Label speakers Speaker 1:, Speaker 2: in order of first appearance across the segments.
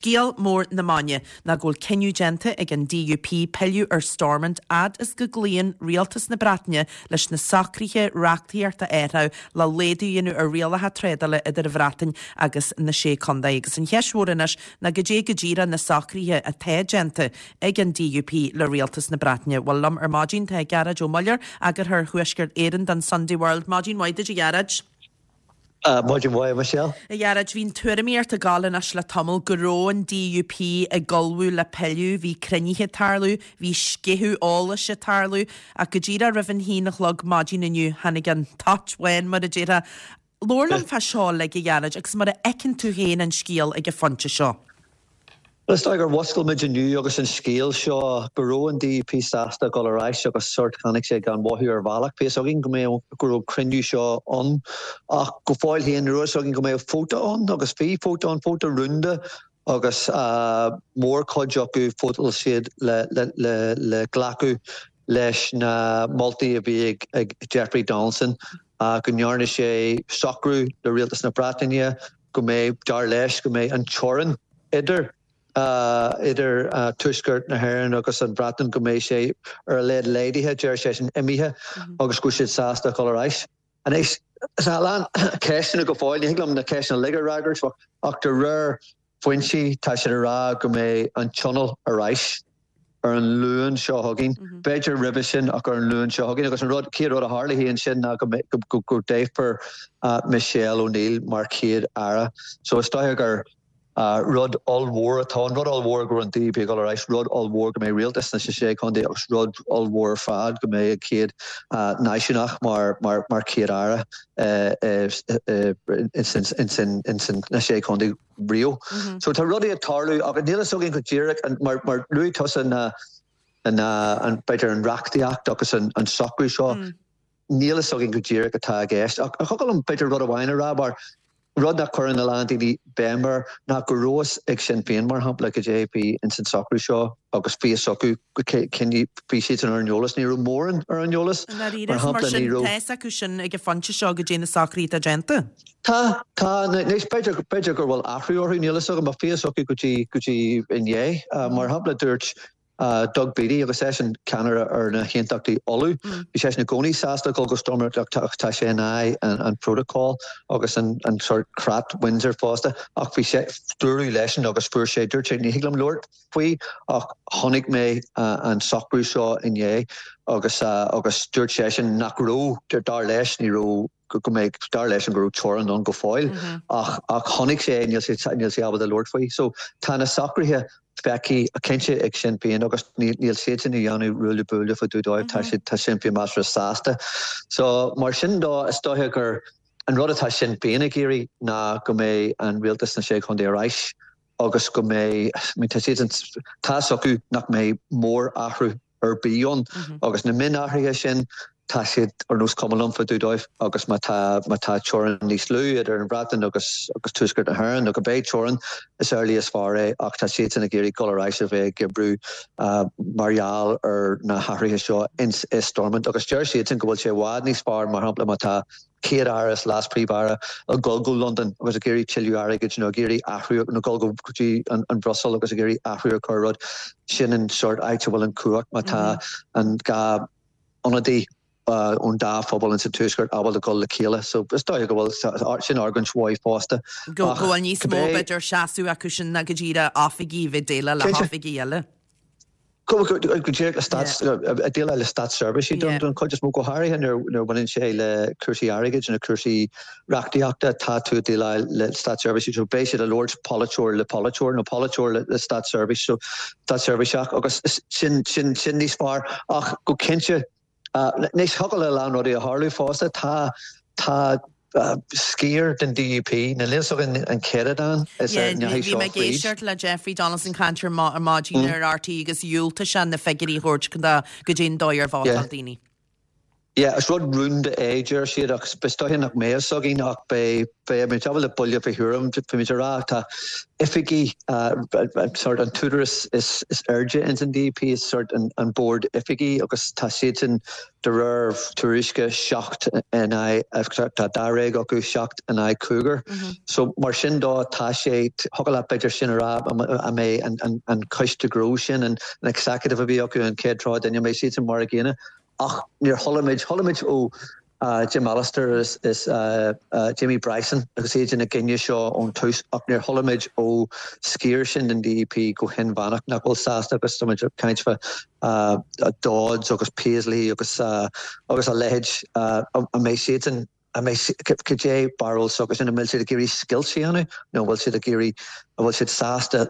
Speaker 1: Scéal mór na maidine ná go bhfuil cinneadh déanta ag an DUP pilleadh ar Stormont fhad is go gcloíonn Rialtas na Breataine leis na socruithe reachtaíochta a athrú le laghdú a dhéanamh ar rialacha trádála idir an Bhreatain agus na Sé Contae. Agus an cheist mhór anois ná goidé go díreach na socruithe atá déanta ag an DUP le Rialtas na Breataine. Bhuel liom ar maidin tá Gearóid Ó Muilleoir, Eagarthóir Thuaisceart Éireann don Sunday World. Maidin mhaith duit a Ghearóid.
Speaker 2: Maidin mhaith, a Michelle.
Speaker 1: A Ghearóid, bhí an tuairimíocht ag gabháil anois le tamall go raibh an DUP ag ullmhú le pilleadh, bhí cruinnithe ag tarlú, bhí sceitheadh eolais ag tarlú, ach go díreach roimh an haon a chlog maidin inniu tháinig an toit bhán, mar a déarfá. Labhair liom fá seo uilig, a Ghearóid, agus mar a fheiceann tú féin an scéal ag an phointe seo.
Speaker 2: Bhuel, is dóigh gur mhuscail muid inniu agus an scéal seo go raibh an DUP sásta dul ar ais agus sórt tháinig sé gan mhothú ar bhealach. Bhí fhios againn go mbeadh, go raibh cruinniú seo ann ach go fóill féin ní raibh fhios againn go mbeadh vóta ann agus bhí vóta ann, vóta rúnda agus mórchuid acu vótáil siad le, le, le, le glacadh leis na moltaí a bhí ag, ag Jeffrey Donaldson go ndearna sé socrú le Rialtas na Breataine go mbeidh, dar leis, go mbeidh an teorainn idir idir Tuaisceart na hÉireann agus an Bhreatain, go mbeidh sé ar a laghad laghdaithe, deir seisean, imithe agus go bhfuil siad sásta dul ar ais. Anois, tá a lán ceisteanna go fóill, ní thig liom na ceisteanna uilig a fhreagairt ach de réir foinsí tá siad ag rá go mbeidh an Tionól ar ais. ar an Luan seo chugainn, b'fhéidir roimhe sin ach ar an Luan seo chugainn. Agus an rud, chéad rud a tharlóidh ansin ná go go go dtoghfar Michelle O'Neill mar Chéad Aire. So is dóiche gur rud ollmhór atá ann, rud ollmhór go raibh an DUP ag dul ar ais, rud ollmhór go mbeidh rialtas sna sé chontae agus rud ollmhór ar fad go mbeidh an chéad náisiúnach mar mar mar Chéad Aire ins na sé chontae. riamh. So tá rudaí ag tarlú ach níl fhios againn go díreach mar mar luaigh tusa na na an b'fhéidir an reachtaíocht agus an an socrú seo níl fhios againn go díreach atá i gceist. Ach thiocfadh liom b'fhéidir rud amháin a rá mar rud nach cuireann a lán daoine béim air ná go raibh fhios ag Sinn Féin mar shampla goidé bhí ins an socrú seo agus bhí fhios acu bhí siadsan ar an eolas ní raibh mórán ar an eolas
Speaker 1: mar shampla ní raibh Tá fhios acu sin ag an phointe seo goidé na socruithe atá déanta.
Speaker 2: Tá, tá. Anois, b'fhéidir, b'fhéidir gur bhfuil athrú orthu, níl fhios agam, ach bhí fhios acu go dtí, go dtí inné. Mar shampla, dúirt Doug Beattie, agus eisean ceannaire ar na hAontachtaí Uladh, bhí seisean i gcónaí sásta dul go Stormont ach tá sé in aghaidh an, an protocol agus an, an sort creat Windsor fosta, ach bhí sé, dúradh leisean agus fuair sé, dúirt sé, ní thig liom labhairt faoi ach chonaic mé an socrú seo inné agus, agus dúirt seisean nach raibh, dar leis, ní raibh, go mbeidh, dar leisean go raibh teorainn ann go fóill ach ach chonaic sé é, níl sé níl sé ábalta labhairt faoi. So tá na socruithe feicthe cinnte ag Sinn Féin agus níl níl siadsan ag déanamh ruaille buaille fá dtaobh dóibh, tá siad tá Sinn Féin measartha sásta. So mar sin dó is dóiche gur an rud atá Sinn Féin ag iarraidh ná go mbeidh an rialtas sna Sé Chontae ar ais agus go mbeidh, I mean tá siadsan tá fhios acu nach mbeidh mór-athrú ar bith ann agus na mionathruithe sin tá siad ar nós cuma liom fá dtaobh dóibh agus má tá má tá teorainn níos lú idir an Bhreatain agus agus Tuaisceart na hÉireann nó go mbeidh teorainn is amhlaidh is fearr é ach tá siadsan ag iarraidh dul ar ais a bheith ag oibriú mar gheall ar na hathruithe seo ins i Stormont agus deir siadsan go bhfuil sé i bhfad níos fearr mar shampla má tá Chéad-Aire is Leas-Phríomh-Aire ag dul go Londain agus ag iarraidh tuilleadh airgid nó ag iarraidh athrú nó dul go dtí an Bhruiséil agus ag iarraidh athrú a chur ar rud. Sin an sórt áit a bhfuil an cumhacht má tá an dá ionadaí ón dá phobal ins an Tuaisceart ábalta dul le chéile. So is dóiche go bhfuil sin argóint mhaith fosta.
Speaker 1: Go bhfuil níos mó b'fhéidir seasamh acu sin ná go díreach oifigigh a bheith ag déileáil le hoifigigh eile.
Speaker 2: Go díreach le stát, ag déileáil le státseirbhísigh don chuid is mó, go háirithe nuair a bhaineann sé le cúrsaí airgid nó cúrsaí reachtaíochta, tá tú ag déileáil le státseirbhísigh so beidh siad ag labhairt polaiteoir le polaiteoir nó polaiteoir le státseirbhís, so státseirbhíseach agus sin, sin, sin níos fearr ach go cinnte Anois, thiocfadh le a lán rudaí a tharlú fosta. Tá, tá sciar den DUP, níl fhios againn an céatadán is a ndeachaigh
Speaker 1: seo
Speaker 2: fríd. Bhí mé
Speaker 1: ag éisteacht le Jeffrey Donaldson caint ar maidin ar RTÉ agus dhiúltaigh sé na figiúirí a thabhairt goidé an dóigh ar vótáil daoine.
Speaker 2: Yeah, is rud rúnda é, deir siad, ach is dóiche nach mbeidh a fhios againn ach beidh, beidh muid ábalta buille fé thuairim, bhí muid ag rá, tá oifigí, sort an t-údarás is airde ins an DUP is sort an bord oifigí agus tá siadsan de réir tuairisce 7 in aghaidh, tá dáréag acu, 7 in aghaidh cúigear. So mar sin dó tá sé, thiocfadh leat b'fhéidir sin a rá an mbeidh an coiste gnó sin, an executive a bhí acu an chéad tráth duine, an mbeidh siadsan mar a gcéanna. Ach níor chuala muid, chuala muid ó Jim Allister is Jamie Bryson agus iad ina gcoinne seo ón tús ach níor chuala muid ó sciar sin den DUP go hinmheánach nach bhfuil sásta agus tá muid ag caint fá Dodds agus Paisley agus agus a leithéid an mbeidh siadsan An mbeidh, cad é barúil s'acusan, an bhfuil siad ag iarraidh scoilt a dhéanamh nó an bhfuil siad ag iarraidh, an bhfuil siad sásta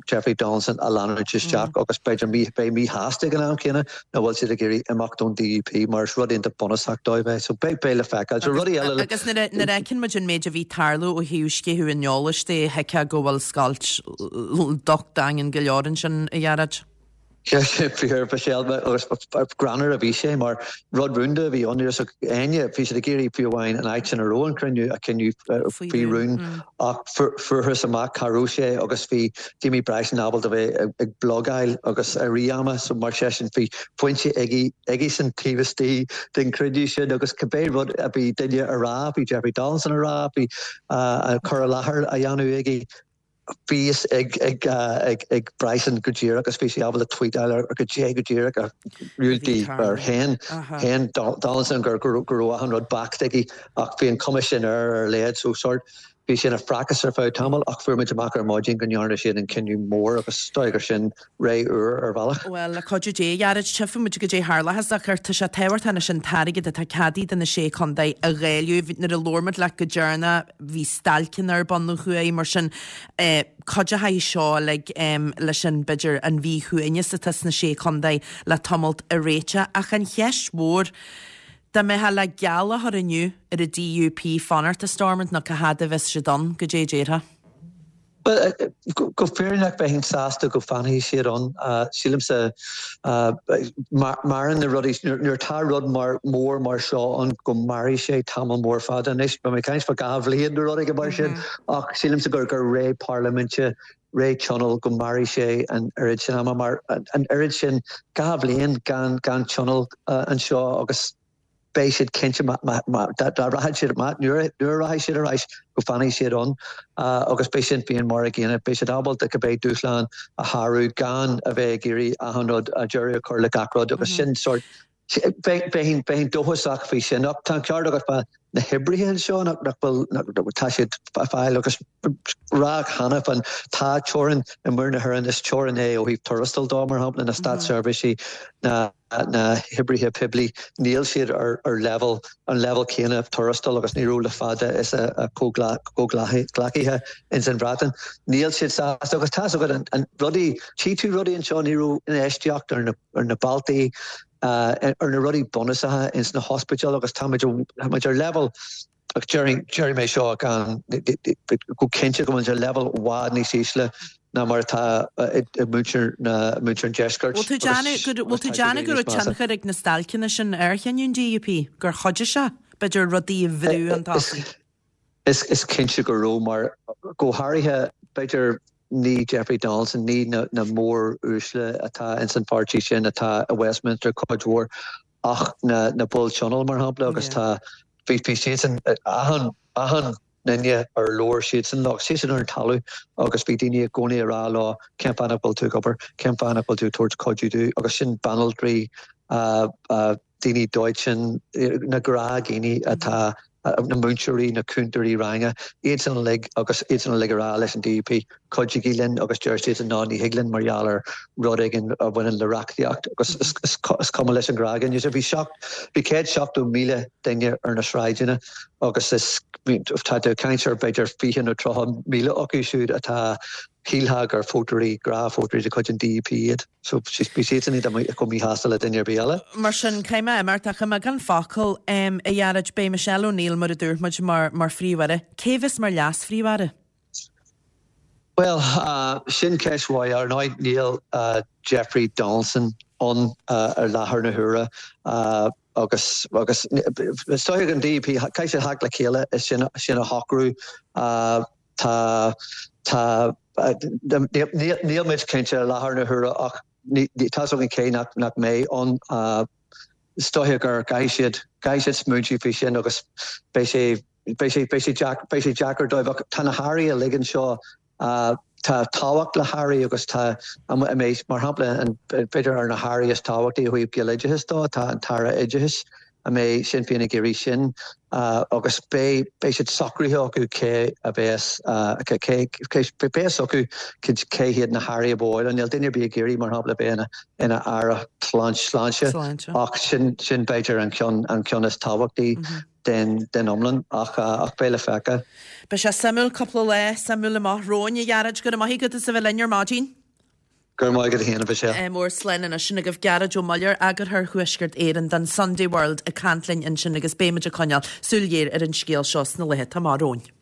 Speaker 2: Jeffrey Donaldson a leanúint isteach agus b'fhéidir beidh míshásta ag an am céanna nó an bhfuil siad ag iarraidh imeacht ón DUP mar is rud iontach bunúsach dóibh é. So beidh, beidh le feiceáil. So rudaí eile le.
Speaker 1: Agus nuair a, nuair a fheiceann muid an méid a bhí ag tarlú ó thaobh sceitheadh an eolais de, thuigfeá go bhfuil scoilt docht daingean go leor ansin, a Ghearóid.
Speaker 2: Sin fíor, Michelle, agus greannmhar a bhí sé mar rud rúnda a bhí ann. Ní raibh a fhios ag éinne, bhí siad ag iarraidh fiú amháin an áit sin a raibh an cruinniú a choinneáil faoi rún ach fuarthas amach cá raibh sé agus bhí Jamie Bryson ábalta bheith ag blogáil agus i rith ama so mar sin bhí foinse aigesean taobh istigh den chruinniú sin agus cibé rud a bhí duine a rá, bhí Jeffrey Donaldson a rá, bhí cur i láthair á dhéanamh aige. Bhí fhios ag Bryson go díreach agus bhí sé ábalta tweetáil ar go dté go díreach ar ar shéan shéan Donaldson go raibh achan rud backed aige ach bhí an cuma sin air ar a laghad so sort bhí sé ina phracas ar feadh tamaill ach fuair muid amach ar maidin go ndearna siad an cinneadh mór agus is dóigh gur sin ré úr ar bhealach.
Speaker 1: Bhuel, le cuidiú Dé, a Ghearóid, tchífidh muid goidé tharlóchas ach tá sé tábhachtach anois an t-airgead atá ceadaithe do na Sé Chontae a dháileadh. Nuair a labhair muid leat go deireanach bhí stailceanna ar bun ó thuaidh, mar sin cuideochaidh seo uilig leis an, b'fhéidir, an mhíshuaimhneas atá sna Sé Chontae le tamalt a réiteach. Ach an cheist mhór, dá mbeifeá le geall a chur inniu ar an DUP fanacht i Stormont nó cá fhad a bheas siad ann, goidé a déarfá?
Speaker 2: Bhuel, go fírinneach bheinn sásta go bhfanfaidh siad ann. Sílimse, maireann na rudaí, nuair atá rud mar, mór mar seo ann go mairfidh sé tamall mór fada. Anois, beidh mé ag caint fá 2 bhliain nó rud éigin mar sin, ach sílimse gur gur ré parlaiminte, ré tionóil, go mairfidh sé an oiread sin ama mar an oiread sin, 2 bhliain gan gan tionól anseo agus, beidh siad cinnte dá rachaidh siad, nuair a rachaidh siad ar ais, go bhfanfaidh siad ann agus beidh Sinn Féin mar a gcéanna. Beidh siad ábalta cibé dúshlán a shárú gan a bheith ag iarraidh achan rud, deireadh a chur le gach rud agus sin sórt, bheinn dóchasach faoi sin. Ach tá an ceart agat fá na hoibrithe anseo nach bhfuil, tá siad ag fáil agus rá cheana féin tá teorainn i muir na hÉireann, is teorainn é ó thaobh tuarastail dó, mar shampla, na státseirbhísí, na. na hoibrithe poiblí, níl siad ar leibhéal, an leibhéal céanna tuarastail agus ní raibh le fada is a gcomhghleacaithe ins an Bhreatain. Níl siad sásta agus tá's agat an rudaí, tchí tú rudaí anseo, ní raibh infheistíocht ar na, ar na bealtaí, ar na rudaí bunúsacha ins na hospidéil agus tá muid, tá muid ar leibhéal, Ach déarfaidh mé seo gan, go cinnte go bhfuil muid ar leibhéal i bhfad níos ísle ná mar atá i muintir na, muintir an deiscirt.
Speaker 1: Bhfuil tú déanamh go, bhfuil tú déanamh go raibh tionchar ag na stailceanna sin ar chinneadh an DUP, gur chuidigh sé, b'fhéidir, rudaí a bhrú chun tosaigh?
Speaker 2: Is cinnte go raibh, mar go háirithe, b'fhéidir, ní Jeffrey Donaldson, ní na mór-uaisle atá ins an pháirtí sin atá i Westminster cuid mhór, ach na na baill tionóil mar shampla agus tá bhí bhí siadsan achan achan duine ar labhair siadsan leo siadsan ar an talamh agus bhí daoine i gcónaí ag rá leo cén fáth nach bhfuil tú ag obair cén fáth nach bhfuil tú ag tabhairt cuidiú dúinn agus sin banaltraí daoine dóiteáin na gnáthdhaoine atá na múinteoirí, na cúntóirí ranga, iadsan uilig agus iadsan uilig ag rá leis an DUP, cuidigí linn agus deir siadsan ná ní thig linn mar gheall ar rud éigin a bhaineann le reachtaíocht agus is cuma leis an ghnáthdhuine. So bhí bhí 170,000 duine ar na sráideanna agus is tá tú ag caint ar b'fhéidir 20 nó 30,000 acu siúd atá shílfeá gur vótóirí, gnáthvótóirí de chuid an DUP iad. So bhí siadsan iad chomh míshásta le duine ar bith eile.
Speaker 1: Mar sin, caithfidh mé imeacht ach i mbeagán focal, a Ghearóid, beidh Michelle O'Neill, mar a dúirt muid, mar mar Phríomh-Aire. Cé a bheas mar Leas-Phríomh-Aire?
Speaker 2: Bhuel, sin ceist mhaith. Ar ndóigh, níl Jeffrey Donaldson ann ar láthair na huaire. Agus agus is dóiche an DUP caithfidh siad theacht le chéile is sin sin a shocrú. Tá tá níl muid cinnte i láthair na huaire ach tá 's againn cé nach nach mbeidh ann. Is dóiche gur caithfidh siad caithfidh siad smaointiú faoi sin agus beidh sé beidh sé beidh sé beidh sé deacair dóibh ach tá na hairí uilig anseo Tá tábhacht le hairí agus tá, mar shampla, b'fhéidir ar na hairí is tábhachtaí ó thaobh Gaeloideachas dó, tá an tAire Oideachais, an mbeidh Sinn Féin ag iarraidh sin agus beidh beidh siad socraithe acu cé a bheas cé beidh fhios acu cé hiad na hairí a ba mhaith leo. Níl duine ar bith ag iarraidh, mar shampla, bheith ina aire sláinte ach sin sin b'fhéidir an ceann an ceann is tábhachtaí. den iomlán ach beidh le feiceáil.
Speaker 1: Beidh sé suimiúil cúpla lá suimiúil amach romhainn, a Ghearóid. Go raibh maith agat as a bheith linn ar maidin.
Speaker 2: Go raibh maith agat féin, a Mhichelle.
Speaker 1: Ádh mór slán anois. Sin agaibh Gearóid Ó Muilleoir, Eagarthóir Thuaisceart Éireann don Sunday World ag caint linn ansin agus beidh muid ag coinneáil súil ghéar ar an scéal seo sna laetha atá amach romhainn.